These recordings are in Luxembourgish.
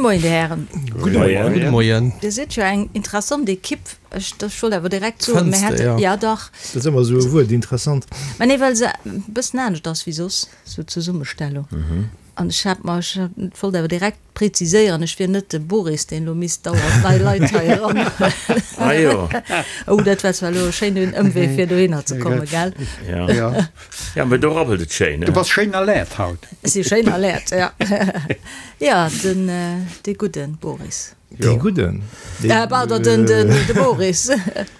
Moien, Dir Hären. Gudde Moien. Gudde Moien. Dir sidd jo eng interessant Ekipp. Ech wollt awer direkt soen, Fënns mir de, hätte, jo. ja dach. Dat ass ëmmer esou e Wuert, interessant. Mä nee, well se e bëssen anescht ass wéi soss, esou d'Zesummestellung. An ech hat mer, ech wollt awer direkt preziséieren, ech wier net de Boris, deen elo misst dauernd nei Leit hei eranhuelen. Ah jo. Oh, dat war zwar elo e schéinen Ëmwee, fir dohinner ze kommen, gell? Ja. Ja, mä do rabbelt et schéin, Du bass schéin alert haut. Ech si schéin alert, ja. Ja, den, dee gudden Boris. Dee gudden? Äh, pardon, den, den, de Boris.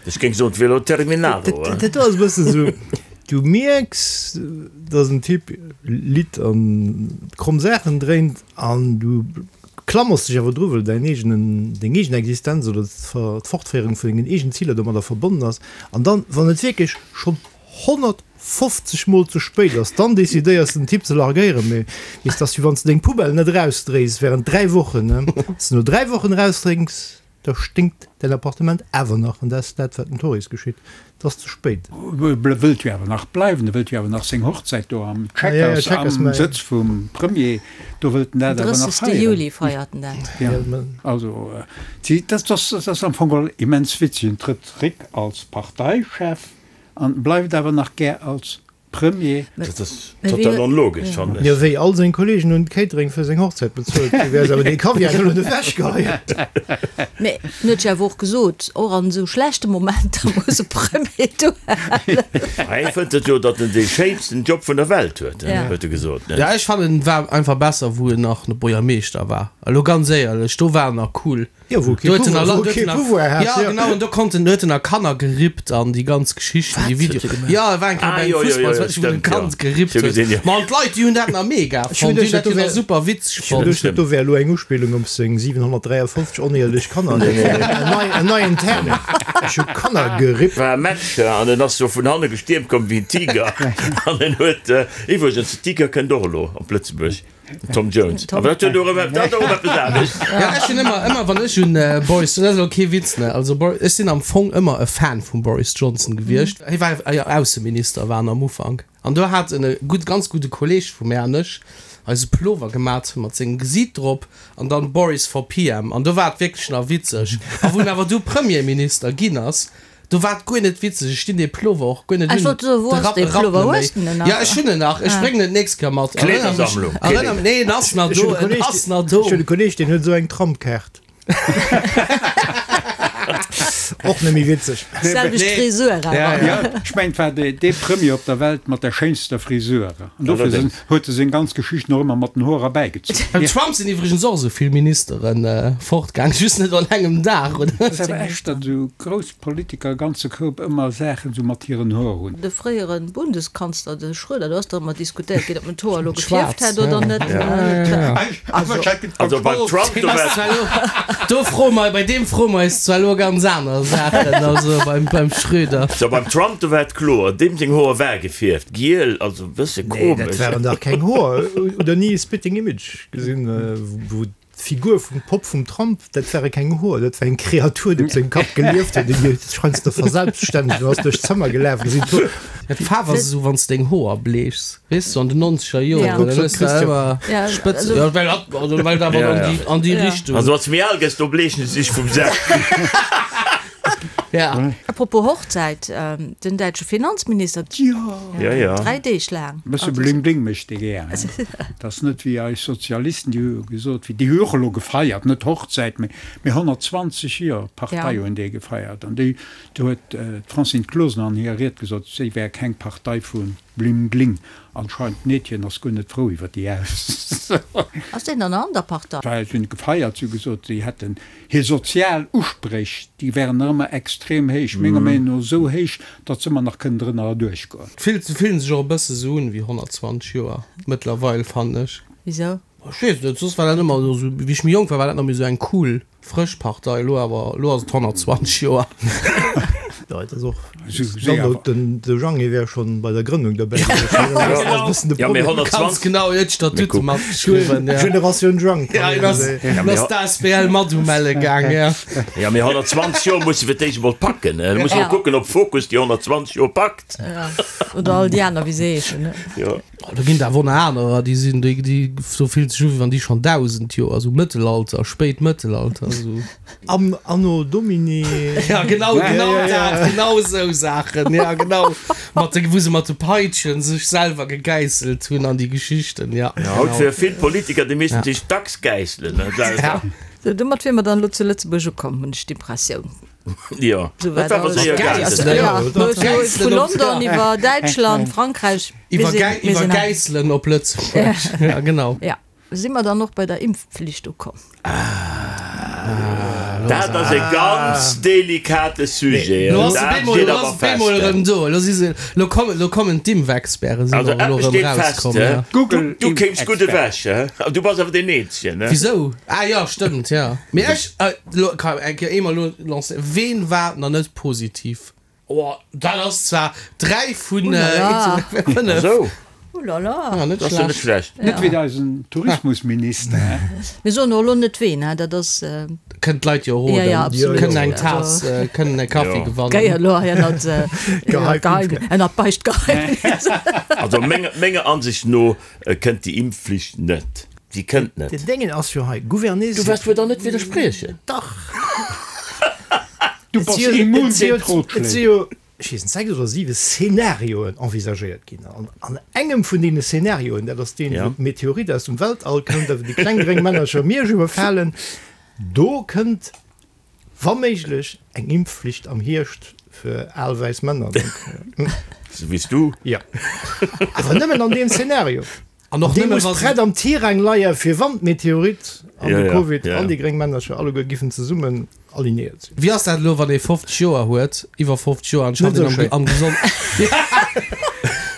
Ech géing soen, d'Velo Terminado. Dat do ass e bëssen esou, du mierks, dass en Typ litt an kromm Saachen dréint an du klammers dech awer dru, well däin eegenen, deng eegen Existenz oder d'Fortféierung vun dengen eegenen Ziler domadder verbonnen ass. An dann, wann et wierklech schonn 150 mol ze spéit ass, dann decidéiers de den Typ ze largéieren, mee weess, dass wéi wann s de deng Poubelle net erausdréis während 3 Wochen, ne, wann s de no 3 Wochen erausdrénks, da sténkt däin Appartement awer nach an dat ass dat wat den Tories geschitt, et ass ze spéit. E wëllt jo awer nach bleiwen, e wëllt jo awer nach seng Hochzäit do am Chequers, am Sëtz vum Premier, do wëllt en dat awer nach 30. feieren. Juli feiert en dat. Ja, also dat ass am Fong geholl immens witzeg, en trëtt zréck als Parteichef, An bleift awer nach gär als Premier. Dat ass total onlogesch, fannen ech. Jo, wéi all seng Kollegen hunn d'Catering fir seng Hochzäit bezuelt. Du wäers awer dee Kaviar elo net ewechgeheien. Mee en huet jo awer och gesot, och an esou schlechte Momenter muss e Premier duerhalen. Hei fënnt et jo, datt en dee schéinsten Job vun der Welt huet, huet e gesot, ne? Ja, ech fannen en war einfach besser wou en nach Buergermeeschter war. Elo ganz éierlech, do war en nach cool. Jo, wou kee Pouvoir hat. Ja, genau, an do konnt en, huet en a Kanner gerippt an déi ganz Geschichten, déi Video. Ja, e war eng Kéier bei engem Fussball, wou en e Kand gerippt huet. Ma an d'Leit, déi hunn dat nach mega fonnt, déi hunn dat jo nach super witzeg fonnt. Ech hunn geduecht, dat do wär elo eng Uspillung op seng 753 oneeërlech Kanner. En neien Term, Ech hu Kanner gerippt. War e Match an en ass jo vun hanne gestiermt komm wéi en Tiger an en huet, iwwregens, de Tiger kënnt och elo op Lëtzebuerg. Tom Jones. Awer dat huet och erëm, dat ass och eppes anescht. Ja, ech hunn ëmmer, ëmmer wann ech un Boris, dat ass elo kee Witz, ne, also Bor, ech sinn am Fong ëmmer e Fan vum Boris Johnson gewiescht. Hie war jo Ausseminister war en am Ufank an do hat en e gutt, ganz gudde Kolleeg vu mär an ech eis e Plover gemat mat sengem Gesiit drop an dann Boris for PM an do war et wierklech nach witzeg. A wou en awer du Premierminister ginn ass, Do war et guer net witzeg, ech dinn dee Plover och guer net Ech un. wollt soen, wou De ass Rapp dee rappt Plover? net Hues méi. de en nach? Ja, ech hunn en nach, ech bréngen en d'nächst Kéier mat. Erënner mech, Kleedersammlung, erënner, nee, en ass nach Ech hunn do, e en Kolleg, ass nach do. ech hunn e Kolleg, deen huet esou eng Trampkaart. Och net méi witzeg. Selwecht Nee. Frisur awer. Ja, ja. Ja, ech mengen, et war dee, dee Premier op der Welt mat der schéinster Frisur. An dofir sinn, Allerdéngs. huet e seng ganz Geschichten och ëmmer mat den Hoer erbäigezunn. Beim Trump sinn iwwregens och esou vill Ministeren fortgaang, just net an engem Dag, oder? Et ass awer echt, datt esou grouss Politiker e ganze Koup ëmmer Saachen esou mat hiren Hoer hunn. De fréiere Bundeskanzler, de Schröder, do ass dach ëmmer diskutéiert ginn, ob en d'Hoer elo gefierft hätt oder net. Also beim Trump, do war. Do froe mer, bei deem froe mer eis zwar elo ganz aner Saachen, also beim Schröder. So beim Trump, do war et kloer, deem seng Hoer war gefierft, giel, also e bësse Nee, dat komesch. waren dach keng Hoer. Hutt der ni Spitting Image gesinn, wou D'Figur vum Popp vum Trump, dat ware keng Hoer, dat war eng Kreatur, déi op sengem Kapp gelieft huet, déi sech heiansdo verselbststännegt an ass duerch d'Zëmmer gelaf. Gesinn d'Hoer. Ja, d'Faarf ass esou, wann s de deng Hoer bleechs, weess du, an den nonzeger Joren, dann hues de ëmmer Spëtzen, jo, well dat, also well dat awer an déi, an déi Richtung. Also wann s de méi al gëss, do bleechen se sech vum selwen. Ja. Apropos Hochzäit, den däitsche Finanzminister, Ja, ja. 3 Deeg laang. E bësse Bling Bling mécht dee gär, hein. Dat ass net wéi eis Sozialisten, déi hu gesot, wéi, déi hu och elo gefeiert, net Hochzäit, mee, mee 120 Joer Partei hunn déi gefeiert. An déi, do huet d'Francine Closener an hirer Ried gesot, si wär keng Partei vu Bling Bling. Anscheinend d'Meedchen ass guer net frou iwwer déi Ausso. Ass deen dann an der Partei? Well si hunn gefeiert, si hu gesot, si hätten Hir sozial Uspréch, déi wären nach ëmmer extrem héich, menger Meenung no esou héich, datt se ëmmer nach kënnen drënner erduerchgoen. Fillt, se fillen sech och e bësse sou un wéi 120 Joer mëttlerweil, fannen ech. Wisou? Ech weess net, soss war dat ëmmer esou, wéi ech méi jonk war, war dat nach méi sou eng cool, frësch Partei, elo awer, elo ass et 120 Joer. Jo, et ass och Download, den de Jeanny wär schonn bei der Grënnung derbäi gewiescht. Dat ass e bëssen de Ja, mee Problem. Ganz 120. genau, hien huet d'Statute matgeschriwwen, ja. Generatioun Jang, Ja, kann hien een ass, soen. hien ass d'ASBL mat umelle gaang, ja. Ja, mee 120 Joer muss e fir d'éischt emol packen. Da muss Ja. e kucken, ob Focus déi 120 Joer packt. Ja. Oder all déi aner, wéi se heeschen, ne? Jo. Oh, do ginn et awer och nach anerer, déi sinn, déi, déi, do fillt sech u wéi wann déi schonn 1.000 Joer, esou Mëttelalter, spéit Mëttelalter, esou. Am Anno Domini. Ja, genau, genau dat, genau esou Saachen, ja, genau. Mat de, wou se mat de Peitschen sech selwer gegäisselt hunn an déi Geschichten, ja. Ja, haut fir vill Politiker, déi missten sech dacks gäisselen, ne, selwer. Ja. Sou, domat wier mer dann elo zu Lëtzebuerg ukomm, hunn ech d'Impressioun. Jo, Sou dat war war awer alles. séier gaangen. Gäisselen, Ja, Gäisselen vu op, London ja. iwwer Däitschland, Frankräich, mir Iwwer sinn, Gäi, mir iwwer sinn hei. Gäisselen op Lëtzebuerg, ja, genau. Ja. Si mer dann och bei der Impfpflicht ukomm? Dat ass e ganz delikate Sujet. Lo ass de Dat Bemol, steet lo awer ass Bemol fest. erëm do. Lo si se, lo kommen, lo kommen d'Impfexperten sinn Also och elo eppes erëm steet fest, rauskomm, ja. Du, du kéims gutt ewech, he? Du bass awer deen Eenzegen, he? Wisou? Ah jo, stëmmt, ja. Mee ech, lo kann eng Kéier eemol lo lancéieren, Ween war nach net positiv? Oh, dat ass zwar 3 vun 5. Esou. Oh la la. Ja, net Dat ass jo net schlecht. schlecht. Net wéi eisen Tourismusminister, hè? Mir soen och elo net ween, hè, dat ass. Kënnen d'Leit jo roden. Ja, ja, absolut. Kënnen eng Taass, kënnen e Kaffi Jo. gewannen. Géi elo hei ënnert Geheim, ënnert Beichtgeheimnis. Also menger, menger Ansicht no kënnt déi Impfflicht net. Déi kënnt net. Den Déngen ass jo hei, Gouverner. Du waars wuel dann net widderspriechen? Dach. Du bass immun géint Et si Rotschléi. jo, ech weess net, 6 oder 7 Szenarioen envisagéiert ginn. An an engem vun deene Szenarioen, dat ass deen, wou d'Meteorit aus dem Weltall kënnt a wou déi kleng gréng Männercher Miersch iwwerfalen, do kënnt wa méiglech eng Impfflicht am Hierscht fir al wäiss Männer. Donc, Sou wéi s du? Jo. Awer nëmmen an deem Szenario. An och Dee nëmme muss wa se. prett am Tirang leie fir wann d'Meteorit an Ja, de ja, Covid ja, an ja. déi gréng Männercher alleguer giffen zesummen alignéiert sinn. Wéi ass dat elo, wann ee 50 Joer huet, iwwer 50 Joer, an schafft Net een esou am, am Gesond.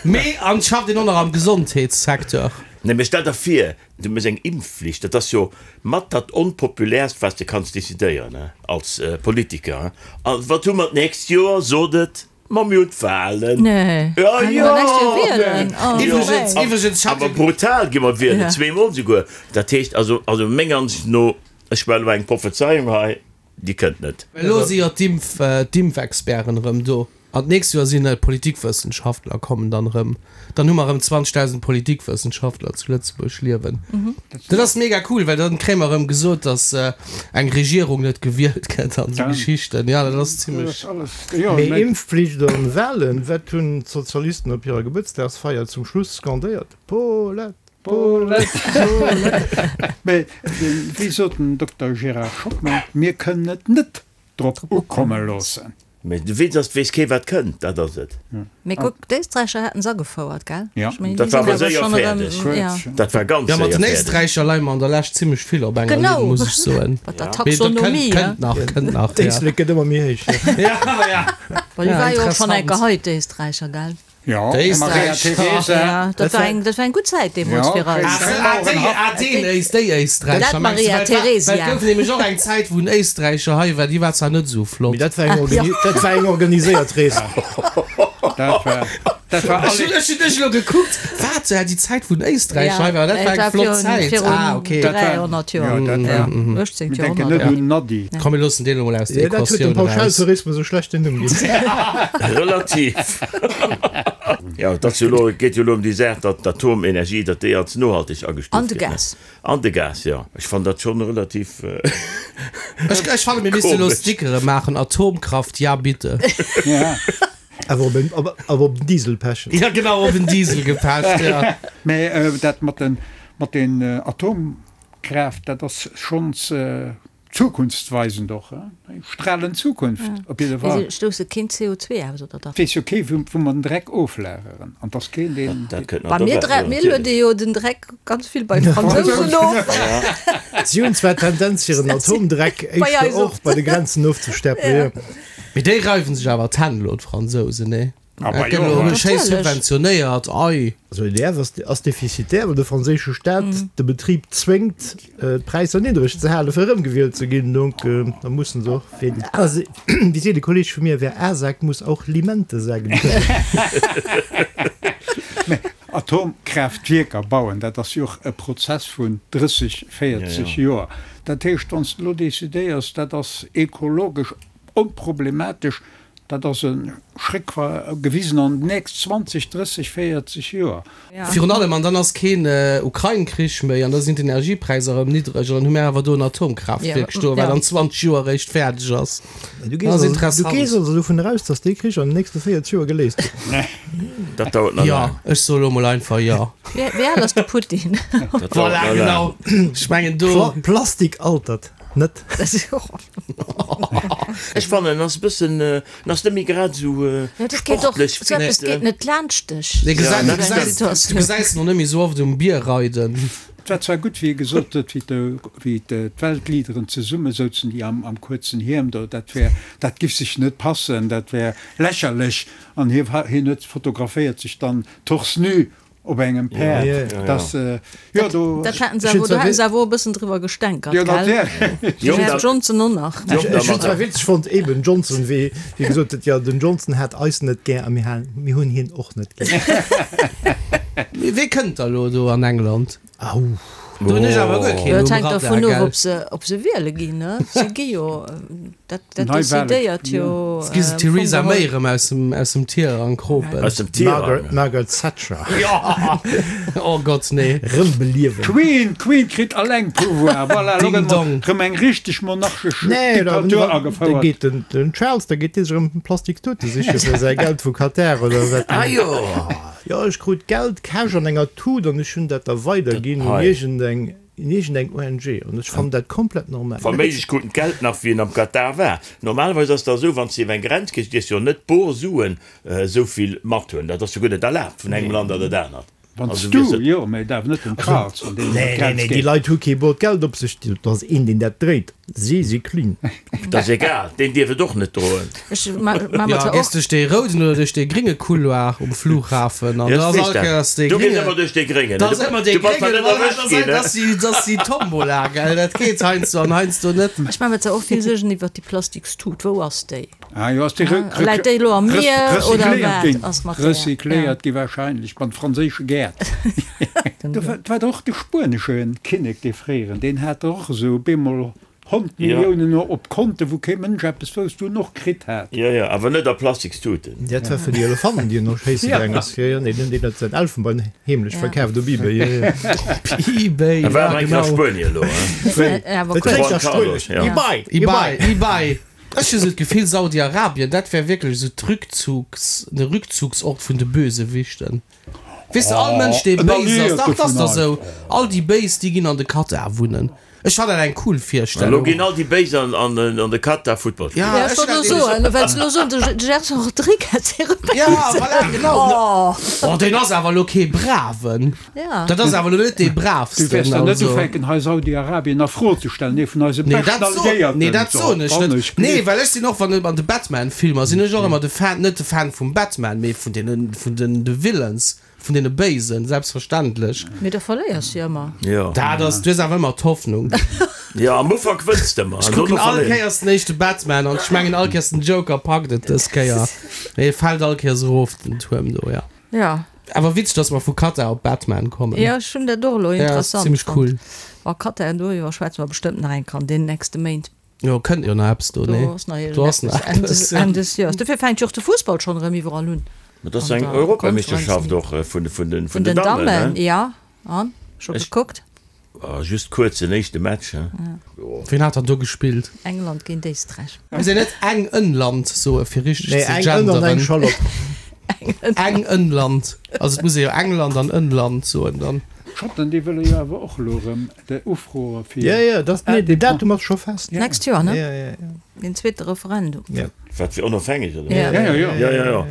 Mee an schafft een och nach am Gesondheetssecteur? Nee, mee stell der vir, du méchs eng Impfflicht, dat ass jo mat dat onpopulärst, wat s de kanns decidéieren, he, als Politiker, he. A wat hu mer d'nächst Joer? Sot et! Ma mir hunn d'Wahlen. Nee. Ja, Mir jo. nächst Joer wielen. Oh, Iwwregens, nee. iwwregens, ich Awer hatte. brutal gi mer wielen, Ja. zweemol souguer. Dat heescht also, also menger Ansicht no, ech maachen elo eng Prophezeiung hei, déi kënnt net. Elo si jo d'Impf, d'Impfexperten erëm do. An d'nächst Joer sinn d'Politikwëssenschaftler kommen dann erëm. Dann hu mer erëm 20.000 Politikwëssenschaftler zu Lëtzebuerg liewen. Dat ass mega cool, well dann kréie mer erëm gesot, datt eng Regierung net gewielt gëtt an esou Geschichten. Jo, dat ass zimlech. Mee Impfflicht an Wahlen, wat hunn d'Sozialisten op hirer Gebuertsdagsfeier zum Schluss skandéiert? Paulette, Paulette, Paulette! Mee wéi sot den Dokter Gérard Schockmel, mir kënnen et net drop ukomme loossen. Mee de Witz ass, 't weess kee wat kënnt, dat ass et. Mee kuck, d'Éisträicher haten se agefouert, gell? Ja. Ech mengen, Dat déi war sinn awer awer séier schonn erëm, fäerdeg. ja. Dat war ganz Ja, mat séier den fäerdeg. Éisträicher leie mer an der Lescht zimmlech vill op enger Genau. Linn, muss ech soen. Mat der Mee dat kënnt, Taxonomie, ja. kënnt nach, kënnt nach, ja. D'Éislek gëtt ëmmer méi héich. Ja, ja. Well déi Ja, war jo och schonn interessant. eng Geheit, d'Éisträicher, gell? Ja, Déi Maria Éisträicher. Theresa. Ja, dat war eng, dat war eng gutt Zäit deemools Ja, fir eis. okay. Ah, déi, ah, deen Éist, déi Éisträicher Dat mengst du? Maria Well et war, Theresia. well et gouf nämlech och eng Zäit, wou en Éisträicher hei war, déi war zwar net esou flott. Mee dat war eng, organi dat war eng organiséiert Rees. Dat war, dat war Ech hunn, alle. ech hunn ech elo gekuckt, wat, ja, déi Zäit, wou en Éisträicher hei war, dat war eng flott Zäit. Virun Ah, okay. Dat war- 300 Joer. Ja, dat war. 18. Mir denken net Joerhonnert. un Nadi. Komm, mir loossen deen elo mol aus der Ja, dat huet dem Equatioun eraus. Pauschaltourismus e schlechten Numm ginn. Relativ. Jo, et ass jo elo, et geet jo elo ëm déi Saach, datt d'Atomenergie, datt déi als nohalteg agestuuft An de gëtt, ne? Gas. An de Gas, jo. Ech fannen dat schonn relativ Ech, ech fanne mir misste elo komesch. Stickere maachen, Atomkraft, ja bitte. Ja. Awer op en, awer op den Diesel pechen. Ja genau, op en Diesel gepecht, ja. Mä dat mat den, mat den Atomkraaft, dat ass schonns Zukunftsweisend och, eng stralend Zukunft op jidde Mee Fall. se stousse keen CO2 aus, oder dach? Et weess jo kee wou mer den Dreck oflageren an 't ass keen deen. Dat kënnt nach Bei mir dobäi, dre jo, mir natierlech. luede jo den Dreck ganz vill bei d'Fransousen of. Si hunn zwar d'Tendenz hiren Atomdreck Bei éischter eis och och. bei de Grenzen ofzestäppelen, jo. Mee déi reiwen sech awer d'Hänn elo, d'Fransousen, nee? Dat gëtt elo schéi subventionéiert, ei. Also EDF ass defizitär, well de franséische Staat de Betrib zwéngt, d'Präisser niddreg ze halen, fir erëmgewielt ze ginn. Donc da mussen se och, wéi seet e Kolleeg vu mir, Wer A sagt, muss auch Limente sagen können. Mä Atomkraaftwierker bauen, dat ass jo och e Prozess vun 30, 40 Joer. Dat heescht, wann s de elo decidéiers, dat ass ekologesch onproblematesch, Dat ass e Schréck gewisen an déi nächst 20, 30, 40 Joer. Virun allem, an dann ass keen Ukrain-Krich méi an da sinn d'Energiepräisser erëm niddreg an dann hu mir awer do en Atomkraaftwierk stoen, wat an 20 Joer eréischt fäerdeg ass. Du gees also, du gees also dovun eraus, datt dee Krich an den nächste 40 Joer geléist gëtt? Dat dauert nach laang. Jo, ech soe lo mol einfach jo. Wéi al ass de Putin? Dat dauert Voilà, nach laang. genau. Ech mengen do. Plastik altert net. Ech fannen en ass e bëssen, en ass net méi grad esou sportlech fit. Eppes geet net laanscht dech. Du gesäis en och net méi esou oft um Bier reiden. Et war zwar gutt, wéi e gesot huet, wéi d'Weltleaderen zesumme souzen, déi am kuerzen Hiem do, dat wär, dat giff sech net passen, dat wär lächerlech. An hie huet fotograféiert sech dann torse nu Op engem Päerd, dass, jo, do. Dat haten se awer, do haten se awer och e bëssen driwwer gestänkert, gell? Den Här Johnson och nach. Ech hunn zwar witzeg fonnt, eben Johnson, wéi hie gesot huet, jo, den Johnson hat eis net gär a mir halen, mir hunn hien och net gär. Mee wee kënnt da lo do an England? Au. Do hunn ech awer guer keen Dat um hänkt Radar, dervun of, gell? ob se, ob se wiele ginn, ne? Se gi jo, dat, dat Neiwale, decidéiert jo Jetzt gi se am Fong d'Theresa geholl. May erëm aus dem, aus dem Tirang kropen. Aus dem Tirang. Margaret, Margaret Thatcher. Jo! Oh Gott, nee. Rëm beliewen. D'Queen, d'Queen kritt alleng Pouvoir, voilà, elo Ding gëtt dong. erëm eng richteg monarchesch Nee, da, Diktatur da agefouert. geet den, den Charles, da geet dee sech erëm Plastikstute siche fir säi Geld vu Katar oder wat. Ah jo! Jo, ech krut Geld cash an enger Tut an ech hunn dat da weiderginn un iergendeng, un iergendeng ONG an ech fannen dat komplett normal. Wa méiglech krut en d'Geld nach wéi en am Katar war. Normalerweis ass dat esou, wann s de iwwer eng Grenz gees, dierfs de jo net bor Suen esou vill mathunn. Dat ass jo guer net erlaabt vun engem Land an dat anert. Wann s Also du, wiers et. jo, mä et awer net den Charles, wann deen iwwer Nee, nee, d'Grenz nee, déi geet. Leit hu kee bot Geld op sech, dat ass een, deen dat dréit. Si si clean. Dat ass egal, deen dierf et och net droen. Ech ma ma Jo, mat gees och. duerch dee rouden oder duerch dee grénge Couloir um Flughafen an Jo, da ech ass weess all dat. Kéiers dee Du gees grénge. ëmmer duerch dee gréngen. Da ass ëmmer dee Du bass nach gréngen, net erwëscht ginn, dat ass déi, dat ass déi Tombola, gell? Dat geet heiansdo an heiansdo net. Ech ma mer zwar och vill Suergen iwwert déi Plastikstut. Wou ass déi? Ah jo, ass déi re Läit déi elo am Mier oder recycléiert wat ginn? ass mat där? Recycléiert gi wahrscheinlech an franséische Gäert. Do war och de spuenesche Kinnek, dee fréieren, deen hat och esou bemol 100 Milliounen op Konten, wou kee Mënsch eppes wousst, wou en och kritt hat. Jo, jo, awer net a Plastikstuten. Dat war fir déi Elefanten, déi en och schéisse gaang ass. Jo, jo, nee, deen huet säin Elfenbein heemlech verkaaft op Ebay. Jo, jo. Op Ebay, E war ja, awer eng Kéier a genau. Spuenie elo, hein? Dat kléngt nach spuenesch. Ebay, Ebay, Ebay. Ech hu sou d'Gefill, Saudi-Arabien, dat wär wierklech esou d'Rückzugs, de Rückzugsort vun de Bösewichten. Weess de, all Mënsch, dee béis ass, dach, 't ass dach esou, all déi Béis, déi ginn an de Katar wunnen. Ech fannen dat eng cool Elo Virstellung. ginn all déi Béis an de Katar Futtball spillen. Ja, Ja, ech wollt elo soen, well se elo soen, de Gerson Rodrigues wier e Ja, Béisen. voilà, genau. Oh, deen ass awer elo kee Braven. Ja. Dat ass awer elo net dee Braavsten. Du wäers dann net also. ufänken hei Saudi-Arabien a Fro ze stellen, ee vun eise Nee, beschten dat soen, Alliéierten. nee, dat soen ech Wann net. ech Nee, gleef. well ech sinn och, wann an de Batman-Filmer sinn ech och ëmmer de Fan, net de Fan vum Batman, mee vun deenen, vun den de Villains, vun deene Béisen, selbstverständlech. Mee da verléiers du jo ëmmer. Jo. Dat ass, du hues awer ëmmer d'Hoffnung. Jo, am Ufank wënns de ëmmer, Ech an kucken dono all verléiers. Kéiers den éischte Batman an ech mengen all Kéiers den Joker packt et dës Kéier, mee e fält all Kéiers erof den Tuerm do, ja. Ja. Awer witzeg, dass mer vu Qatar op Batman kommen. Ja, ech hunn dat och elo Ja, ass interessant zimmlech fonnt. cool. Wa Qatar, doriwwer schwätze mer bestëmmt nach eng Kéier an deenen nächste Méint. Jo, kënnt jo nach eppes do, Do nee? ass nach Do ass iergendeppes nach Enn des, eppes, ja. Enn des Joers. Dofir fänkt jo och de Fussball schonn erëm iwwerall un. Ma dat ass An eng der Europameeschterschaft Conference och vun vun den Vun vun den den Dammen, Dammen, ne? ja. An? Scho Ech gekuckt? Ah, just kuerz den éischte Match, he? Jo. Wien hat dann do gespillt? England géint Éisträich. Muss een net eng Ënnland soe fir richteg Nee, ze eng Ënn an eng genderen? Schallott. Eng Ënnland. Also et muss ee jo England an Ënnland soen dann. D'Schotten, déi wëlle jo awer och elo erëm de ufroe fir. Ja, ja, das, nee, den Datum ass scho fest. D'nächst Joer, ne? Ja, ja, ja. Den zweete Referendum. Ja. Wat fir onofhängeg, oder? Ja. Ja, ja, ja. Ja, ja, ja.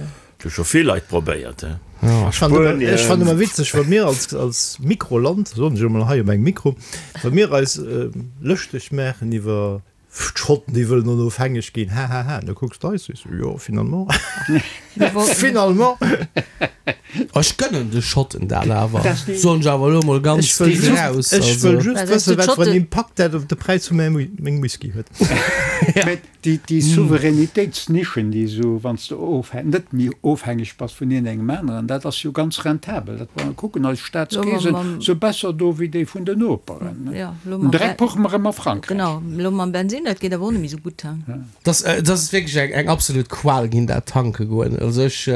Hu scho vill Leit probéiert, he. Ech fannen ëmmer, ech fannen ëmmer witzeg, wa mir als, als Mikroland, soen ech emol hei op engem Mikro, wa mir eis lëschteg maachen iwwer d'Schotten, déi wëllen onofhängeg ginn, hahaha, da kucks de eis, sees du, jo, finalement. Finalement! Ech gënnen de Schotten dat awer, soen ech awer elo mol ganz Ech wëll déck just, raus. ech wëll Also. just wëssen, wat fir en Impakt dat op de Präis vu mengem Whisky huet. Mä déi, déi Souveränitéitsnischen, déi esou, wann s de ofhä-, net méi ofhängeg bass vun iergendengem aneren, dat ass jo ganz rentabel. Dat, wa mer kucken, eis Staatskeesen si besser do wéi déi vun den Noperen. Den Dreck puche mer ëmmer a Frankräich. Genau, elo mam Bensin, dat geet awer och net méi esou gutt. Dat ass wierklech eng absolut Qual ginn, dat tanke goen. Also ech,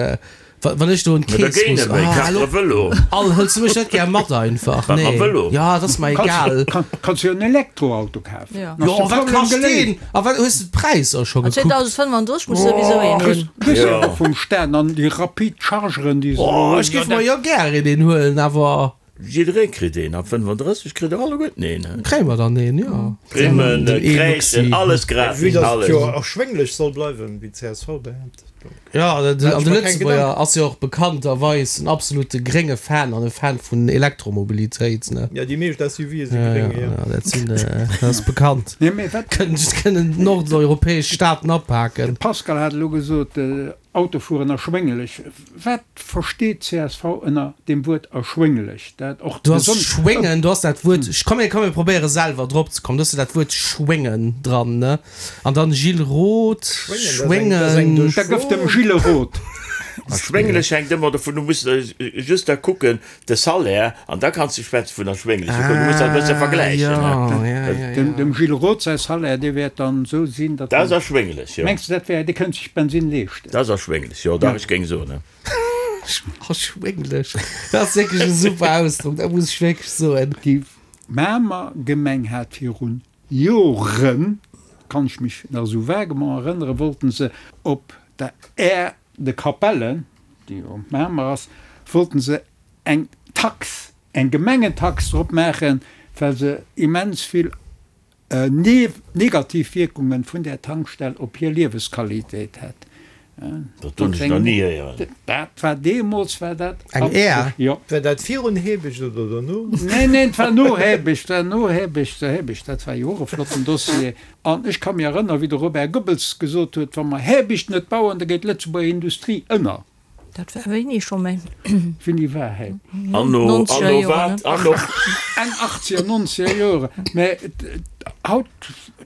wann ech do un d'Keess muss, ah, hallo, all, hëls du mech net gär mat einfach? Nee, jo, dat ass mer egal. Kanns jo en Elektroauto kafen. Jo, wat kascht deen? A wat, hues de d'Präisser scho gekuckt? 2035 muss souwisou een hunn. Kriss jo och vum Staat an déi rapid Chargeren, déi se elo Oh, hunn. ech géif mer jo gär een huelen, awer. Jidderee kritt een, ab 35 kritt der alleguerten een. Kréie mer dann een, jo. Primmen, Kräischen, alles gratis, Vue dass et jo alles. erschwénglech soll bleiwen, wéi d'CSV behaapt, donc. Jo, an de Maache ech mer keng Lëtzebuerger Gedanken. ass jo och bekannterweis en absolute grénge Fan an e Fan vun Elektromobilitéit, ne? Jo, déi meescht SUVe si gréng, jo. Jo, dat sinn, dat ass bekannt. Nee, mee wat. Kënnen d'nordeuropäesch Staaten apaken. De Pascal hat elo gesot, Autofueren erschwénglech. Wat versteet csv ënner deem Wuert erschwénglech? Dat och Du has besonnesch. schwéngen, du has dat Wuert, komm mir, komm mir probéiere selwer drop ze kommen, du has jo dat Wuert schwéngen dran, ne? An dann Gilles Roth, Schwéngen, dat ass eng, dat ass eng schwéngen. Da gëff dem Gilles Roth. Erschwénglech hänkt ëmmer dovun, du muss just da kucken, De Salaire, an da kanns de schwätze vun erschwéngleche Coûten. Du muss dat e bësse vergläichen. Ah, ja, ja, ja, Dem, dem Gilles Roth säi Salaire, dee wäert dann esou sinn, datt Dat ass en, erschwénglech, jo. mengs de, dat wär, dee kënnt sech Bensinn leeschten? Dat ass erschwénglech, jo, dach, ech géing soen. Erschwénglech, dat ass wierklech e super Ausdrock, dat muss ech wierklech soen. Déi Mamer Gemeng hat virun Joren, kann ech mech nach esou vaguement erënneren, wollten se op der Aire de Capellen, déi jo op Mamer ass, wollten se eng Tax, eng Gemengentax drop maachen, well se immens vill negativ Wierkungen vun där Tankstell op hir Liewesqualitéit hätt. Dat hunn ech nach ni héieren. Dat war deemools war dat. Eng Air? Jo. War dat virun Hebecht oder dono? Neen, neen, et war no Hebecht, war no Hebecht, Hebecht, dat war jo och e flotten Dossier. An ech ka mir erënneren, wéi de Robert Goebbels gesot huet, wa mer Hebecht net bauen, da geet d'Lëtzebuerger Industrie ënner. Dat war wéini scho méi? Wéini war hei? Anno, Nonzeger anno Joren, wat? ne? Anno. Enn achtzeger, nonzeger Jore. Mä haut,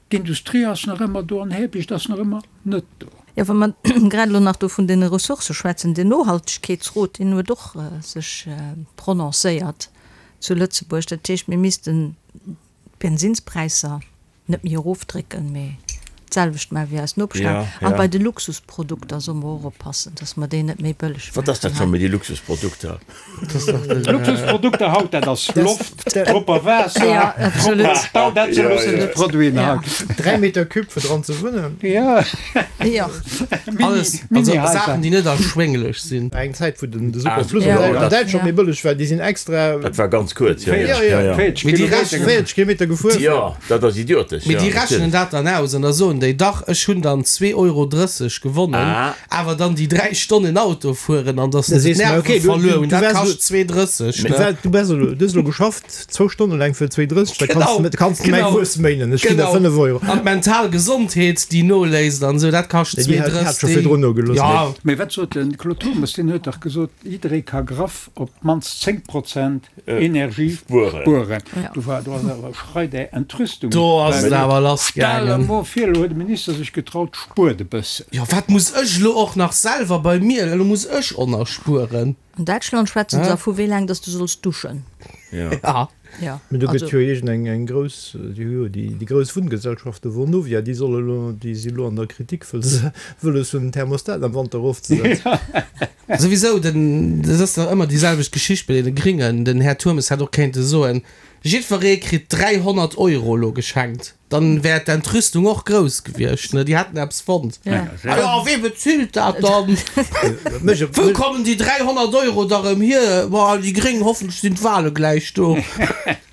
d'Industrie ass nach ëmmer do an Hebecht ass nach ëmmer net do. Jo, wa mer grad elo nach do vun deene Ressourcë schwätzen, den Nohaltegkeetsrot, deen huet och sech prononcéiert zu Lëtzebuerg. Dat heescht, mir missten d'Bensinnspräisser net méi erofdrécken, mee d'selwecht maachen wéi eis Nopeschlänner. Ja, An ja. bei de Luxusprodukter solle mer och oppassen, dass mer déi net méi bëlleg Wat ass dat maachen scho hei. méi, déi Luxusprodukter? Luxusprodukter haut, dat ass Loft, propper Waasser, Ja, absolut. propper Stau, dat si Ja, ja. Luxusproduiten Ja. haut. 3 Meter Cube fir dran ze wunnen. Ja, Jo. Mini, Alles, also Mini-Haiser. Saachen, déi net erschwénglech sinn. Eng Zäit wou den de Ah, Superfluss ja, an dat- Däitschland Ja. méi bëlleg war, déi sinn extra Dat war ganz kuerz, jo, jo. Ja, ja. Ja, ja. 40 Mee déi Kilometer rechnen- 40 Kilometer gefuer. Jo, dat ass idiotesch, Mee jo, déi rechnen natierlech. dat dann aus an da soen déi, dach, ech hunn dann 2,30 Euro gewonnen, Ah. awer dann déi 3 Stonnen Auto fueren an dass Da se sees du mer, d'Nerven okay, du- verluer du- hunn, du dat wärst kascht 2,30, Du ne? war- du bass elo, du hues elo geschafft, zwou Stonne laang fir 2,30, da kanns Genau, du, kanns du mäi genau. Wuess méinen, ech ginn der Genau. 5 Euro. An d'mental Gesondheet, déi noléisst an esou, dat kascht Déi hat- déi hat 2,30. scho virdrun nogelooss, Ja, Mee wat sot den Claude Turmes? Deen huet dach gesot, jidderee ka graff op d'mannst 10 Prozent Energie Spueren. spueren. Ja. Do war do ass awer Schrei der Entrüstung. do ass et awer lass Stell gaangen. emol vir, elo huet de Minister sech getraut, spuert e bëssen. Jo, wat muss ech elo och nach selwer bei mir, elo muss ech och nach spueren. An Däitschland schwätzen se da vu wéi laang dass du solls duschen. Ja. Ja, Mee do gëtt also jo iergend eng eng grouss, déi hu jo déi déi grouss Wunngesellschaften, Vonovia, déi solle elo, déi si elo an der Kritik, wëll se wëlles hunn den Thermostat am Wanter erofzesetzen. Souwisou, den, dat ass dach ëmmer déi selwecht Geschicht bei deene Gringen. Den Här Turmes hätt och kéinte soen, jiddweree kritt 300 Euro elo geschenkt. Dann wär d'Entrüstung och grouss gewiescht, ne? Déi hätten eppes fonnt. Ja. Ah jo, wee bezilt dat dann? Wou kommen déi 300 Euro da rëm hier? Boah, déi Gréng, hoffentlech sinn d'Wahle gläich do.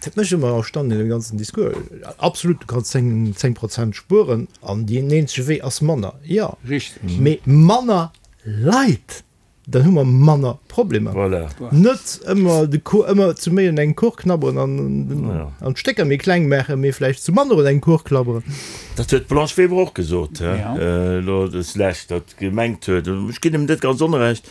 Dat mécht ëmmer erstaunt an deem ganzen Discours. Absolut, du kanns 10, 10 Prozent spueren an deen eenzege Wee ass manner. Jo, Richteg. mee manner Leit! Dann hu mer manner Problemer. Voilà. Net ëmmer de Kuch, ëmmer zu méi un engem Kuch knabberen an, an d'Stécker méi kleng maachen, mee vläicht zu manner un engem Kuch klabberen. Dat huet d'Blanche Weber och gesot, hä, elo des Lescht, datt gemengt huet, ech ginn em net ganz onrecht,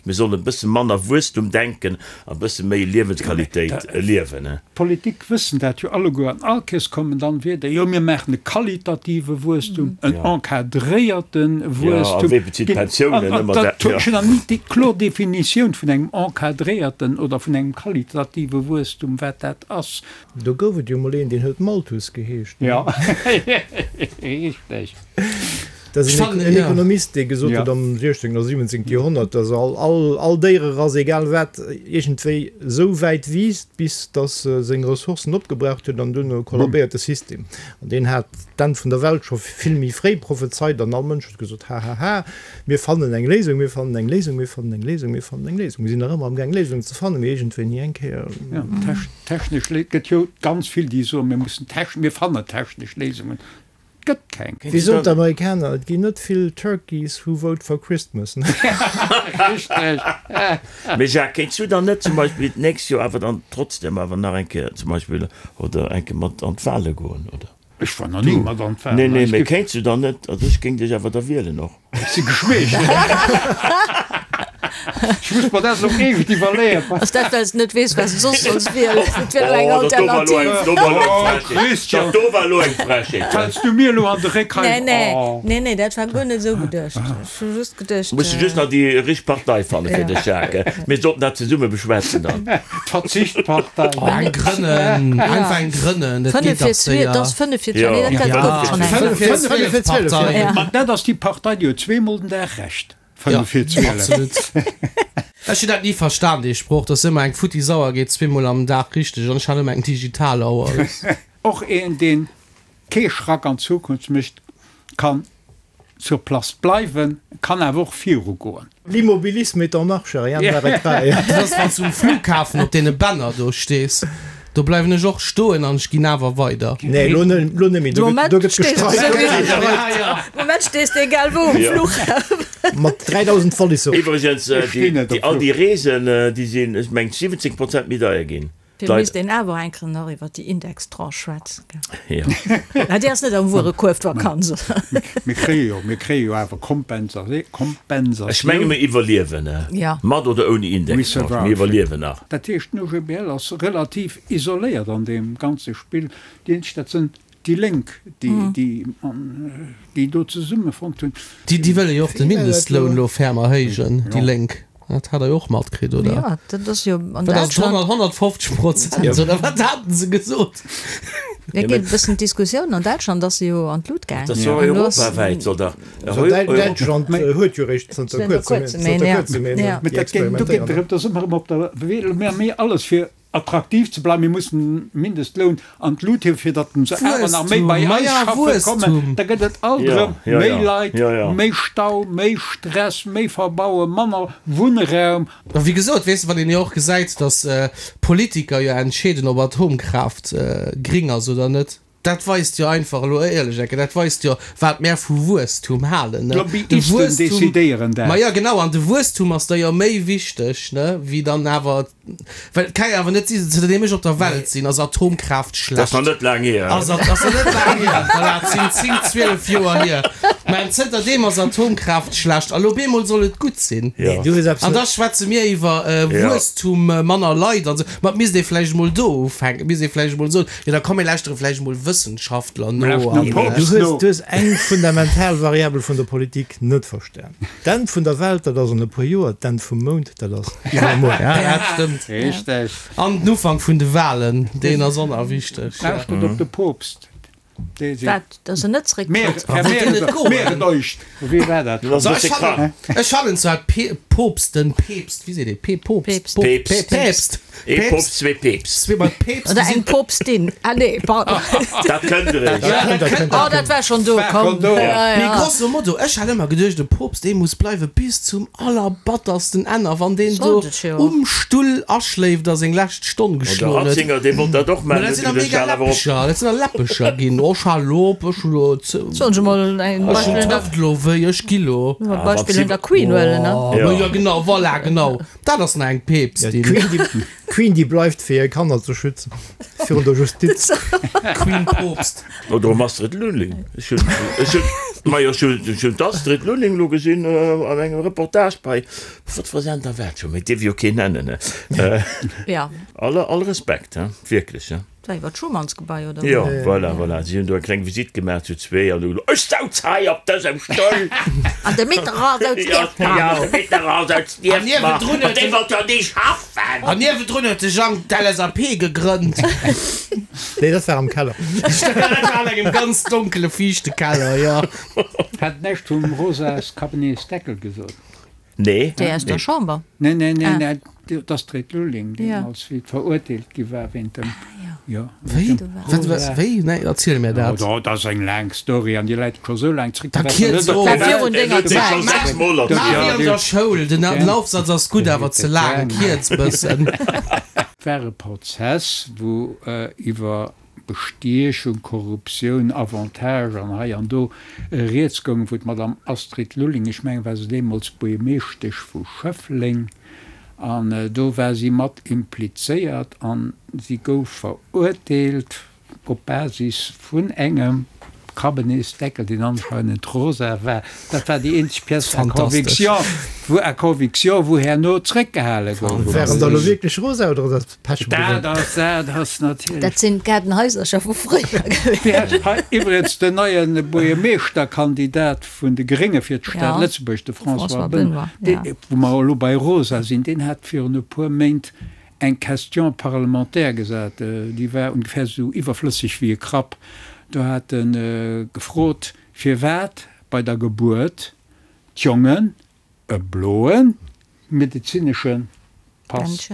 mir sollen e bësse manner Wuesstum denken a bësse méi Liewensqualitéit liewen. D'Politik wëssen dat jo alleguer an all Kees kommen dann Wierder, jo mir maachen e qualitative Wuesstum, en encadréierte Wuesstum. Ech hunn nach ni déi kloer Definitioun vun engem encadréierten oder vun engem qualitative Wuesstum, wat dat ass. Do gouf et jo mol een, deen huet Malthus geheescht. Jo, richteg. Dat ass en Ekonomist, dee gesot huet am 16. oder 17. Joerhonnert, datt all Déiererass, egal wat, iergendwéi esou wäit wiisst, bis datt se seng Ressourcen opgebraucht huet an duerno kollabéiert de System. An deen hat d'Enn vun der Welt scho vill méi fréi prophezeit an all Mënsch huet gesot, Hahaha, mir fannen eng Léisung, mir fannen eng Léisung, mir fannen eng Léisung, mir fannen eng Léisung. Mir sinn nach ëmmer amgaang Léisungen ze fannen, mee iergendwéi ni eng Kéier. Technesch Léi, et gëtt jo ganz vill, déi soen, mir mussen techn, mir fannen technesch Léisungen. Gëtt keng. Wéi soen d'Amerikaner, et ginn net vill Turkeys who vote for Christmas. Richteg. Mee Jacques, kéints du dann net zum Beispill d'nächst Joer awer dann trotzdem awer nach eng Kéier zum Beispill oder eng Kéier mat an d'Wale goen, oder? Ech war nach ni mat an d'Walen. Nee, nee, mee kéints du dann net, also ech géing dech awer da wielen och. Ech si geschweecht. Ech muss mer dat elo eescht iwwerleeën. Ass dat, well s de net weess, wat s de soss solls wielen? Dat wier elo eng Alternativ. Oh, Christian! Dat do war elo eng Frechheet. Fäls du mir elo an de Réck hei? Nee, nee, nee, nee, dat war guer net esou geduecht. Ech hu just geduecht. Muss de just nach déi richteg Partei fanne fir dech, Jacques. Mir sollten dat zesumme beschwätzen dann. D'Verzichtpartei. Oh, eng grënnen, einfach eng grënnen, dat geet dach séier. Dat ass 5 fir 12, nee, dat gouf et schonn eng. 5 fir 12 Partei. Ma dat ass déi Partei, déi huet zweemol den Dag Recht. 5 fir 12. Absolut. Ech hunn dat ni verstan, dee Sproch, dass ëmmer eng futti Sauer geet zweemol am Dag richteg an ech hat ëmmer eng digital Auer. Och een, deen kee Schrack an d'Zukunft mécht, kann sur place bleiwen, kann awer och virugoen. L'immobilisme est en marche, rien ne l'arrêtera. Dat ass wann s du um Flughafen op deene Bänner do stees, do bleiwen ech och stoen an ech ginn awer weider. Nee, elo net méi, do gëtt gestreikt. De Moment stees de egal wou um Flughafen. Mat 3000 Walliser. Iwwregens, all déi Reesen, déi sinn, ech mengen, 17 Prozent méi deier ginn. Fir misst een awer eng Kéier nach iwwer déi Indextranche schwätzen, gell? Jo. Mä déi ass net am Wuerekuerf, d'Vakanz, oder? Mir kréie jo, mir kréie jo awer Kompensatioun. Ech menge mir iwwerliewen, mat oder ouni Indextranche, mir iwwerliewen nach. Dat heescht, den OGBL ass relativ isoléiert an deem ganze Spill. Déi eenzeg, dat sinn déi Lénk, déi, déi do zesummefonnt hunn. Déi wëlle jo och de Mindestloun elo ferm erhéijen, déi Lénk. Dat hat der jo och matkritt, oder? Jo, dat ass jo an Wat ass Däitschland. 150 Prozent, oder wat haten se gesot? Et geet e bëssen d'Diskussioun, an Däitschland ass se jo an d'Lut gaang. Dat ass jo europawäit, soll dach. Däitschland huet jo eréischt zënter kuerzem een, déi experimentéieren. Do geet et erëm, da si mer erëm op der Wee, mir hu méi alles fir Attraktiv ze bleiwen, mir mussen den Mindestloun an d'Lut hiewen, fir datt se awer nach méi bei eis schaffe kommen. Da gëtt et alt erëm méi Leit, méi Stau, méi Stress, méi Verbauen, manner Wunnraum. A wéi gesot, weess de, wann een jo och gesäit, datt Politiker jo entscheeden, ob Atomkraaft gring ass oder net, dat weist jo einfach elo éierlech enke, dat weist jo, wat mär vu Wuesstum halen, ne. De D'Lobbyisten Wuesstum, decidéieren dat. ma jo genau, an de Wuesstum ass da jo méi wichteg, ne, wéi dann awer Well et ka jo awer net sinn, zënterdeem ech op der Welt sinn, ass Atomkraaft schlecht. Dat ass nach net laang hier. Ass ass nach net laang hier, voilà, et sinn 10, 12 Joer hier. Mä zënterdeem ass Atomkraaft schlecht a lo bemol soll et gutt sinn. Nee, du hues eppes An net. da schwätze mir iwwer Wuesstum, manner Leit an esou. Ma et misst ee vläicht emol do ufänken, et misst ee vläicht emol soen, jo da komm mir lauschtere vläicht emol Wëssenschaftler no an. Du hues, du hues eng fundamental Variabel vun der Politik net verstan. D'Enn vun der Welt, dat ass an e puer Joer, d'Enn vum Mound, dat ass iwwermuer. Ja, dat stëmmt. Richteg. An den Ufank vun de Walen, deen ass och nach wichteg. Lauschtert op de Poopst. Dee seet. Wat, dass en net zerécktrëtt? Mehret euch. Wéi war dat? Du ass e bësse krank. Ech fannen zwar d'Poopsten, Peepst, wéi seet ee, Poopst, Peepst, Peepst, Ee Poopst, zwee Peeps. Zwee mol Peeps. Oder eng Poopstin. Ah nee, pardon. Dat kënnt eréischt. Ja, dat kënnt. Oh, dat war schonn do, komm. Mee grosso modo, ech hat ëmmer geduecht, e Poopst, dee muss bleiwe bis zum allerbattersten Enn. A wann deen do Sollt et jo. um Stull aschléift a seng lescht Stonn Oh, de geschloen huet. Ratzinger, dee wollt dat och Mä maachen, dat huet sinn da geduecht, mega hal awer op. Läppecher, dat sinn da Läppecher ginn. Och hal op, ech hu lo ze. Sollen se mol en Ech hunn Beispill un der. d'Hëft lo wéi, ech gi lo. Beispill un der Queen huelen, ne? Oh, ma jo. Jo, genau, voilà, genau. Dat ass nach eng Peepstin. D'Queen, déi bleift, fir hir Kanner ze schützen virun der Justiz. Queen Poopst. Oder um Astrid Lulling. Ech hunn, ech hunn, majo, ech hunn, ech hunn d'Astrid Lulling elo gesinn an engem Reportage bei, wat fir e Sender war et scho méi, dierf jo keen nennen, ne? Ja. Alle, all Respekt, he, wierklech, he. Dat war iwwer d'Schumannsgebai, oder? Jo, voilà, voilà. Si hunn do eng kleng Visitt gemaach zu zwee an hu gesot, Ech souz hei op dësem Stull! An de Mitterrand souz nieft mer! Jo, de Mitterrand souz nieft mer! An dee wollt jo ni schaffen! An niewendrun huet de Jang d'LSAP gegrënnt. Nee, dat war am Keller. Dat war an engem ganz donkele, fiichte Keller, jo. Hat näischt vum Rosas Cabinetsdeckel gesot. Nee. Déi aus der Chamber? Nee, nee, nee, nee, d'Astrid Lulling, déi als wéi verurteelt gi war wéint dem, jo. Wéi? Wat, wat, wéi? Nee, erziel mir dat. Oh, dat ass eng laang Story an déi läit scho sou laang zréck. Da kierz of. Dat war virun denger Zäit. Maach wéi an der Schoul, den Aufsatz ass gutt, awer ze laang, kierz bëssen. War e Prozess, wou iwwer Bestiechung, Korruptioun, Avantage an hei an do rieds goung, wou d'Madame Astrid Lulling, ech mengen war se deemools Buergermeeschtesch vu Schëffleng, an do war si mat implizéiert an si gouf verurteelt op Basis vun engem Kabinetsdeckel, deen anscheinend rosa war. Dat war déi eenzeg Pièce à conviction, wou à conviction, wou herno zréckgehale gouf. Waren der elo wierklech rosa oder ass dat Pech gewesen? Dat ass, dat ass natierlech. Dat sinn d'Gaardenhaisercher vu fréier gewiescht. Hei iwwregens den neie Buergermeeschterkandidat vun de Grénge fir d'Stad Lëtzebuerg, de François Benoy, dee, wou mer elo bei rosa sinn, deen hat virun e puer Méint eng Question parlementaire gesat, déi war ongefähr esou iwwerflësseg wéi e Krapp. Do hat e gefrot, firwat bei der Gebuert d'Jongen e bloe medezinesche Pass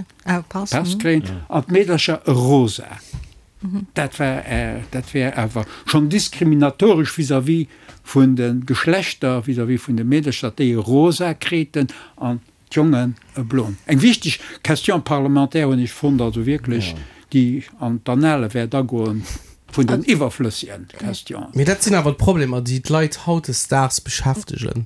kréien an d'Meedercher e rosa. Dat war, dat wär awer schonn diskriminatoresch vis-à-vis vun de Geschlechter, vis-à-vis vun de Meedercher, datt déi e rosa kriten an D'Jongen e bloen. Eng wichteg Question parlementaire hunn ech fonnt, also wierklech, déi an d'Annale wäert agoen vun den iwwerflëssegen Questionen. Mee dat sinn awer d'Problemer, déi d'Leit hautdesdaags beschäftegen.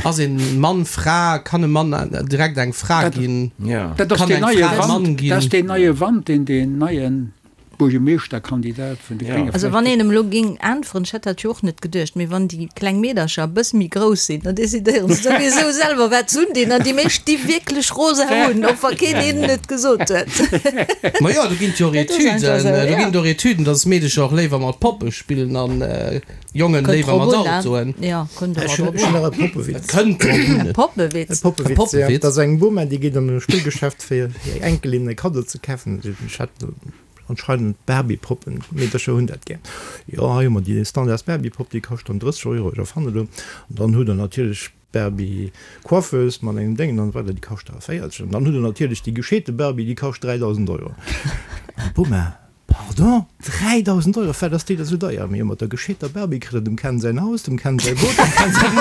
Ass een Mann Fra? Kann e Mann direkt eng Fra ginn? Dat ass Kann deen eng neie Fra e Mann Wand, ginn? dat ass deen neie Wand, deen deen neien Buergermeeschterkandidat vun de Grénge Also wann een em elo géing äntweren, ech hätt dat jo och net geduecht, mee wann déi kleng Meedercher e bësse méi grouss sinn, dann decidéieren se souwisou selwer wat se undinn an déi meescht di wierklech rosa un, och wa keen hinnen et gesot huet. Ma jo, do ginn et jo och Dat ass einfach Etüden, esou, do ja. ginn et och Etüden, dass Meedecher och léiwer mat Poppe spillen an Jongen Kënnt léiwer drop mat un, ne? Autoen. Jo, kënnt Ech ëmmer hunn drop ech hunn un. nach e Poppewitz. Et kënnt drop un. E Poppewitz? E Poppewitz, E ja. Poppewitz? Dat ass eng Boma, déi geet an e Spillgeschäft fir hir Enkelin e Kaddo ze kafen. Ech hat Anscheinend Barbie-Poppen, Meedercher hunn dat gär. Jo, hei hu mer déi standards Barbie-Popp, déi kascht dann 30 Euro, ech erfannen elo. An dann hutt der natierlech d'Barbie-Coiffeuse mat engem Déngen an esou weider, déi kascht da 40. An dann hutt der natierlech déi gescheete Barbie, déi kascht 3.000 Euro. An d'Boma, Pardon, 3.000 Euro, firwat ass déi da sou deier? Mee jo, mat der gescheeter Barbie kritt der dem Ken säin Haus, dem Ken säi Boot, dem Ken säin.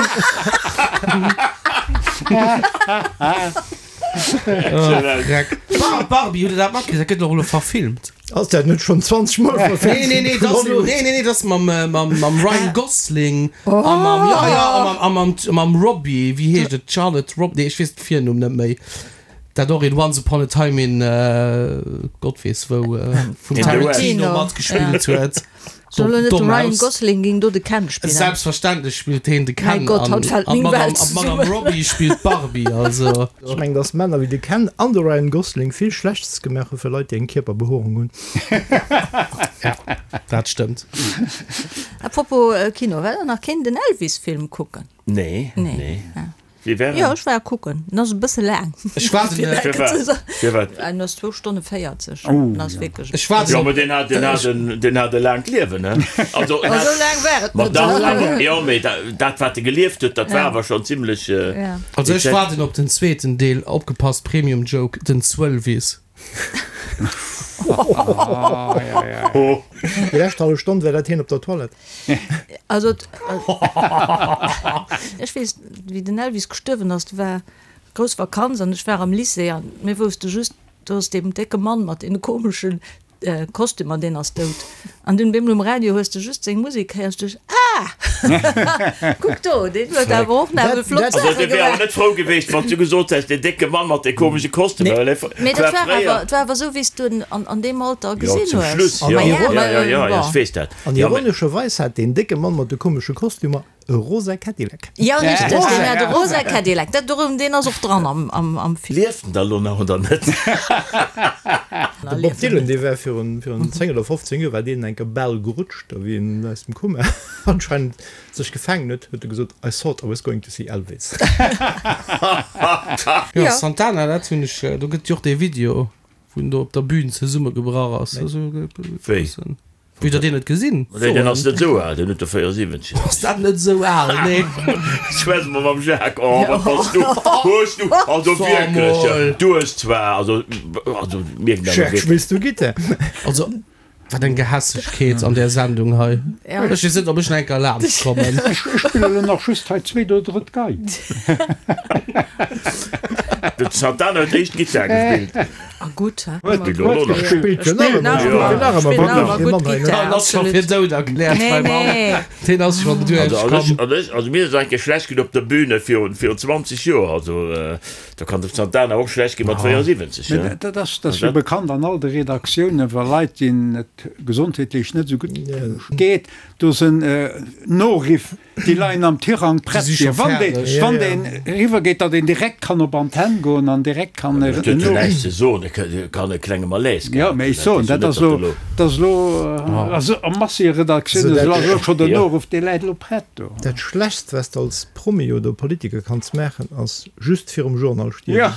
Barbie, hutt der dat matkritt? Dat gëtt och elo verfilmt. Ass dat net schonn 20 Mol verfilmt Nee, nee, nee, dat ass elo, nee, nee, nee, dat ass mam, mam, mam Ryan Gosling a mam, ja, ja, a mam, a mam, mam Robbie, wéi heescht et, Charlotte Rob, nee, ech weess de Virnumm net méi, dat och in Once Upon a Time in Gott weess wou vum Tarantino matgespillt huet. Soll elo net de Ryan Gosling géing do de Ken spillen? Selbstverständlech spillt heen de Ken. Mäi Gott, haut fält meng Welt zesummen. An d'Madame Robbie spillt d'Barbie, also. Ech mengen, dass Männer wéi de Ken an de Ryan Gosling vill Schlechtes gemaach hu fir Leit, déi eng Kierperbehoerung hunn. Ja, dat stëmmt. A propos Kino, well der nach keen den Elvis-Film kucken? Nee, nee. Wéi war en? Jo, ech war kucken. En ass e bësse laang. Ech waarden e. Firwat? Firwat? En ass zwou Stonne 40. En ass wierklech. Ech waarden Jo, op. mä deen hat, deen hat en, deen hat e laangt Liewen, ne? Also, en Oh, hat. esou laang war et Ma net. dach, awer, jo, mee da, dat, wat e gelieft huet, dat war awer schonn zimlech. Ja. Also ech waarden op den zweeten Deel. Opgepasst, Premium Joke, den Zwëllwiss. Déi lescht hallef Stonn war dat hien op der Toilette. Also ech weess, wéi den Elvis gestuerwen ass, do war grouss Vakanz an ech war am Lycée an mir wousste just, do ass deem décke Mann mat deene komeschen Kostümer, deen ass dout. An dunn op eemol um Radio hues de just seng Musek héiers, du duecht, Ah! Kuck do, deen huet awer och nach esou flott Also Saache dee wär awer gemaach. net frou geweecht, wann s du gesot häss, deen décke Mann mat de komesche Kostümer, well e Mee dat war war fréier. awer, et war awer esou, wéi s du en an, an deem Alter Jo, gesinn zum hues. Schluss, Ma jo, ja, jo, ma jo, jo, jo, bon. ech weess dat. An Jo, mä. ironescherweis hat deen décke Mann mat de komesche Kostümer e rosa Cadillac. Jo, richteg, deen hat e rosa Cadillac. Dat dorëm, deen ass och dran am, am, am Film. Lieft en da lo nach oder net? De Bob Dylan, dee war virun, virun 10 oder 15 Joer war deen eng Kéier bal gerutscht, da wéi en aus dem Koma anscheinend sech gefaangen huet, huet e gesot, I thought I was going to see Elvis. Jo, Santana, dat hunn ech, do gëtt jo och dee Video, wou en do op der Bühn zesummegebrach ass. Wéi? Wéi der deen net gesinn? Nee, deen ass net esou al, deen huet der 74. Ass dat net esou al? Nee. Schwätz mol mam Jacques. Oh, wat bass du? Hues du, also wierklech, du hues zwar, also, also mierken awer Jacques, wierklech. spills du Gittar? Also, wat eng Gehässegkeet an där Sendung hei. Ech weess net, ob ech nach eng Kéier laanscht kommen. Ech spillen elo nach just hei zweet oder drëtt Gei. De Santana huet éischt Gittar gespillt. A gutt, hä? Huet elo nach. Spillt jo nach ëmmer, spillt jo nach ëmmer, Spillt nach ëmmer gutt gutt Gittar, Deen ass scho absolut. fir dout erkläert, Nee, mäi Mann. nee. Deen ass schonn Also, also ech, duerchkomm. also ech, also mir ass et eng Kéier schlecht ginn op der Bühne virun, virun 20 Joer. Also da kann dem Santana och schlecht gi mat 74, Mä hä? dat ass, dat ass jo bekannt an all de Redaktiounen, wa Leit, deenen et gesondheetlech net esou gutt geet, do sinn Noriff Déi leien am Tirang prett fir wann deen, wann deen eriwwer geet, datt een direkt kann op Antenn goen an direkt kann Dat huet jo näischt ze soen, e kann e klenge Malaise Jo, gehat mä hunn, ech soen, dat ass elo, dat ass elo, also a Masseredaktioune ass elo scho den Noruff, dee läit elo prett do. Dat Schlechtst, wat s de als Promi oder Politiker kanns maachen, ass just virum Journal stierwen.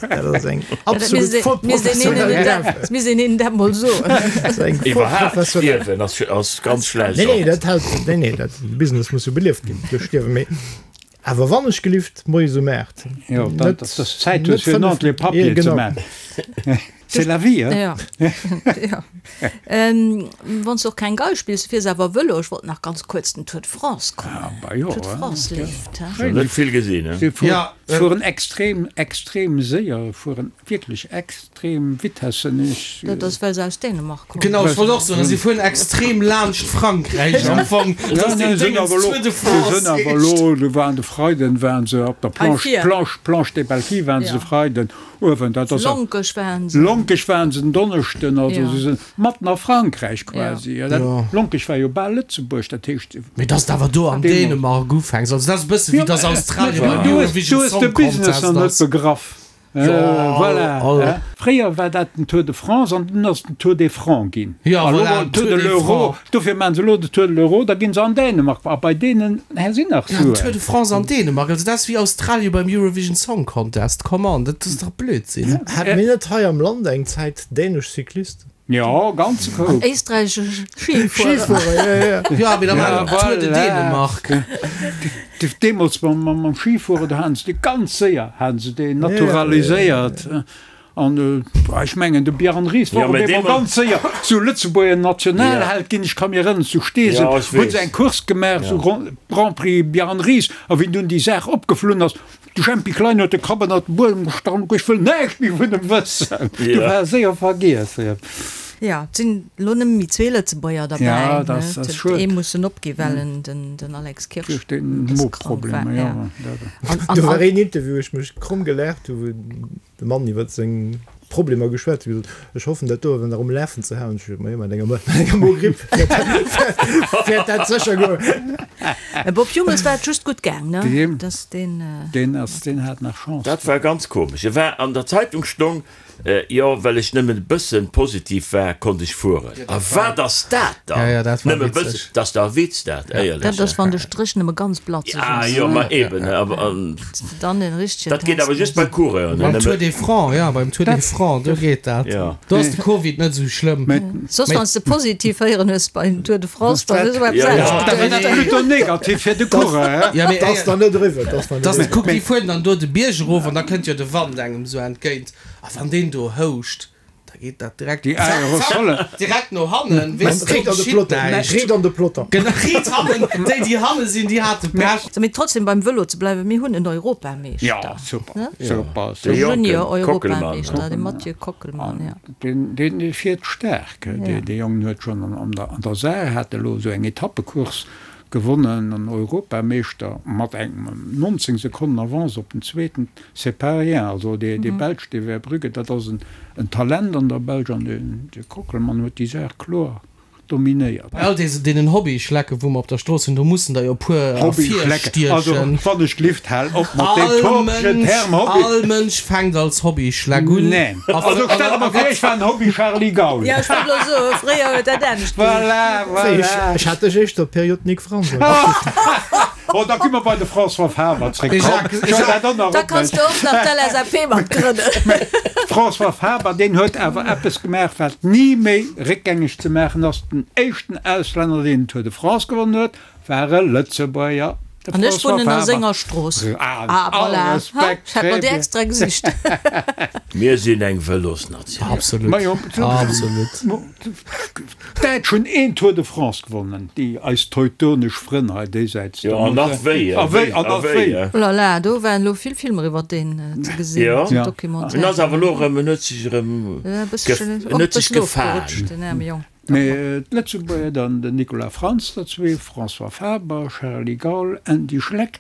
Dat ass eng absolut vollprofessionell Gaffe. Dat misst een hinnen dat mol soen. Dat ass eng Iwwerhaapt vollprofessionell. stierwen ass, ass ganz schlecht. Nee, nee, dat hält, nee, nee, dat, de Business muss jo belieft ginn duerch Stierwen. Mee awer wann ech gelift, moies um 8. Jo, Net, dat, dass s Zäit net hues fir en 5, ordentleche jo, Papier ze genau. maachen. C'est la vie, hein? Ja. Ja. Ähm, wann s de och keng Gei spills, du fiers awer Vëlo. Ech wollt nach ganz kuerz den Tour de France kommen. Ah, bah jo, Tour de hein. France leeft, hein? Schon net vill gesinn, hein? Se fuer, Ja, äh, fueren extrem, extrem séier, fueren wierklech extrem Vitessen. Ech, Dat ass, well se aus Dänemark kommen. Genau, ech wollt och soen, si fueren extrem laanscht Frankräich am Fong. Ja, Dass nee, deen sinn Déngens awer elo, Tour de se France sinn awer heescht. elo, do waren de Freiden waren se op der Hei Planche, vir. Planche, Planche des Belles Filles waren se Ja. de Freiden. Uewen, dat ass. Lonkech waren se. Lonkech waren se en Donneschden, also Ja. se sinn matten a Frankräich quasi. Ja. Dat, Ja. Lonkech war jo bal Lëtzebuerg, dat heescht. Mee dass de awer do an Deemools. Dänemark ufänks, also dat ass e bësse wéi dass Australien beim Du hues, Eurovision du hues de Song Business Contest nach net ass. begraff. Jo, Voilà. all. Hein? Fréier war dat den Tour de France an dunn ass den Tour des Francs ginn. Ja, A lo voilà, war den Tour Tour de des l'Euro. Francs. Dofir maachen se elo de Tour de l'Euro, da ginn se an Dänemark. A bei deenen hä sinn nach Ja, Tour Suen. de France an Dänemark, also dat ass wéi Australien beim Eurovision Song Contest, come on, dat ass dach Blödsinn. Hate mir net hei am Land eng Zäit dänesch Cyclisten? Jo, ganze Koup. Éisträichesch Schifuerer. Schifuerer, ja, ja. Ja, mee da war Ja, Tour de voilà. Dänemark. Deemools mam Schifueren, do haten se dee ganz séier, haten se deen naturaliséiert. An ech mengen, de Bjarne Ries war Ja, op mä eemol deemol- ganz séier zu Lëtzebuerger Nationalheld ginn. Ech ka mir erënneren, zu Steesel Ja, ech hu se weess. eng Course gemaach, sou Grand Prix Bjarne Ries. A wéi dunn déi Saach opgeflunn ass, de Jempy Klein huet de Kapp ënnert de Buedem gestach an huet gesot, Ech wëll näischt méi vun em wëssen. Du Ja. war séier vergiess. Jo, et sinn elo nëmme méi zwee Lëtzebuerger derbäi. Ja, dat ass Et huet schued. ee mussen opgi well en, den, den Alex Kirsch, Duerch den e bësse krank war. Moproblemer, Ja. ja. Dat. An, an, Do war an, een Interview, wou ech mech kromm gelaacht hu, wou de Mann iwwer seng Problemer geschwat huet, gesot, ech hoffen dat do awer nach um Lafen ze halen. Ech gesot, majo, mat enger mat enger Mogripp wäert dat sécher goen. Mä Bob Jungels war et just gutt gaang, ne? Deem, Dass deen. deen ass, deen hat nach Chance. Dat war ganz komesch. E war an der Zeitung stong, Jo, well ech nëmmen e bëssen positiv war, konnt ech fueren. A wat ass dat dann? Ja, ja, dat war Nëmme witzeg. bëssen, dat ass dach e Witz dat, éierlech. Dat ass, wann de Stréch nëmme ganz blatzeg Ah ass. jo, ma eben, awer an Dann en richtegen dat geet awer Test just bei muss. Coureuren, Beim Tour nëmme. des Francs, ja, beim Tour des Francs, do geet dat. Ja. Do ass de Covid net esou schlëmm. Soss, Mee- wann s de positiv héieren hues beim Tour de France, dann ass esou eppes Ja, ja. anescht. Da war dat plutôt negativ fir de Coureur, hä? Ja, mee Dat ass éier- dann net eriwwer, dat ass dann net dass, eriwwer. kuck, déi fueren dann do de Bierg erof an da kënnt jo de Wand engem esou entgéint. A wann deen do houscht, da geet dat direkt Déi Aerosolle. direkt no hannen, weess de, Riit an de geschitt Peloton, näischt. riit an de Peloton. Genau, riit hannen, déi déi hanne sinn, déi hate Pech. Mee trotzdem beim Vëlo ze bleiwen, mir hunn en Europameeschter. Ja, super, Ne? super, De super. Jonken Junior-Europameeschter, Kockelmann. de Mathieu Kockelmann, ja. Deen, deen fiert staark. Dee, dee Jong huet schonn an, an der, an der Saar hat elo esou eng Etappecourse. Gewonnen an Europameeschter mat engem 19 Sekonnen Avance op den zweeten, c'est pas rien. Also dee Belsch, dee Verbrugge, dat ass en Talent an der Belsch an de Kockelmann huet déi Saach kloer dominéiert. Bei all deenen Hobbyschlecke wou mer op der Strooss hunn, do mussen der jo e puer Hobbyschlecke, also ervirstiechen. wann ech gelift, hal op mat deem topegen Term Hobby. All Mënsch fänkt als Hobbyschleck un. Neen. Also stell der mer vir, ech war en Hobby Charly Gaul. Jo, ech wollt elo soen, fréier huet dat anescht geheescht. Voilà, voilà. Ech hat dech éischter Period Nic Frantz. Oh, da gi mer bei de François Faber zréck. Mee Jacques, Komm, ech huel dat och nach Da op, kanns de och nach d'LSAP mat grënnen. Mee François Faber, deen huet awer eppes gemaach, wat ni méi réckgängeg ze maachen ass, Den éischten Auslänner, deen den Tour de France gewonnen huet, war e Lëtzebuerger. De An ech François wunnen a Faber. senger Strooss. Ah, Ah, all voilà. Ha, Respekt, ech hat mer très déi bien. extra gesicht. Mir sinn eng Vëlosnatioun. Absolut, Majo, absolut. D'Däitsch hunn een Tour de France gewonnen, déi eis teutonesch Frënn hei déisäits. Jo, an nach wéi, A wéi, an nach wéi. Oh la la, do waren elo vill Filmer iwwer deen ze gesinn, Jo, sou en Documentaire. ass awer elo erëm, en huet sech erëm, E bësschen, en och e huet sech bëssen gefaang. ofgerutscht, den aarme Jong. Mee d'Lëtzebuerger dann, den Nicolas Frantz, der zwee, François Faber, Charly Gaul, Andy Schleck,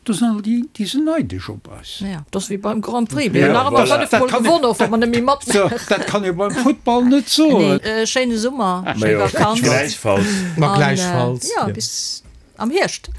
do sinn all déi, déi sinn neidesch op eis. Ja, dat ass wéi beim Grand Prix, mir hunn nach ëmmer 5 Mol gewonnen, och wa mer net méi matmaachen. Dat kann ee beim Futtball net soen. Nee, schéine Summer, schéi Vakanz. Gläichfalls. Ma gläichfalls. An jo, bis am Hierscht.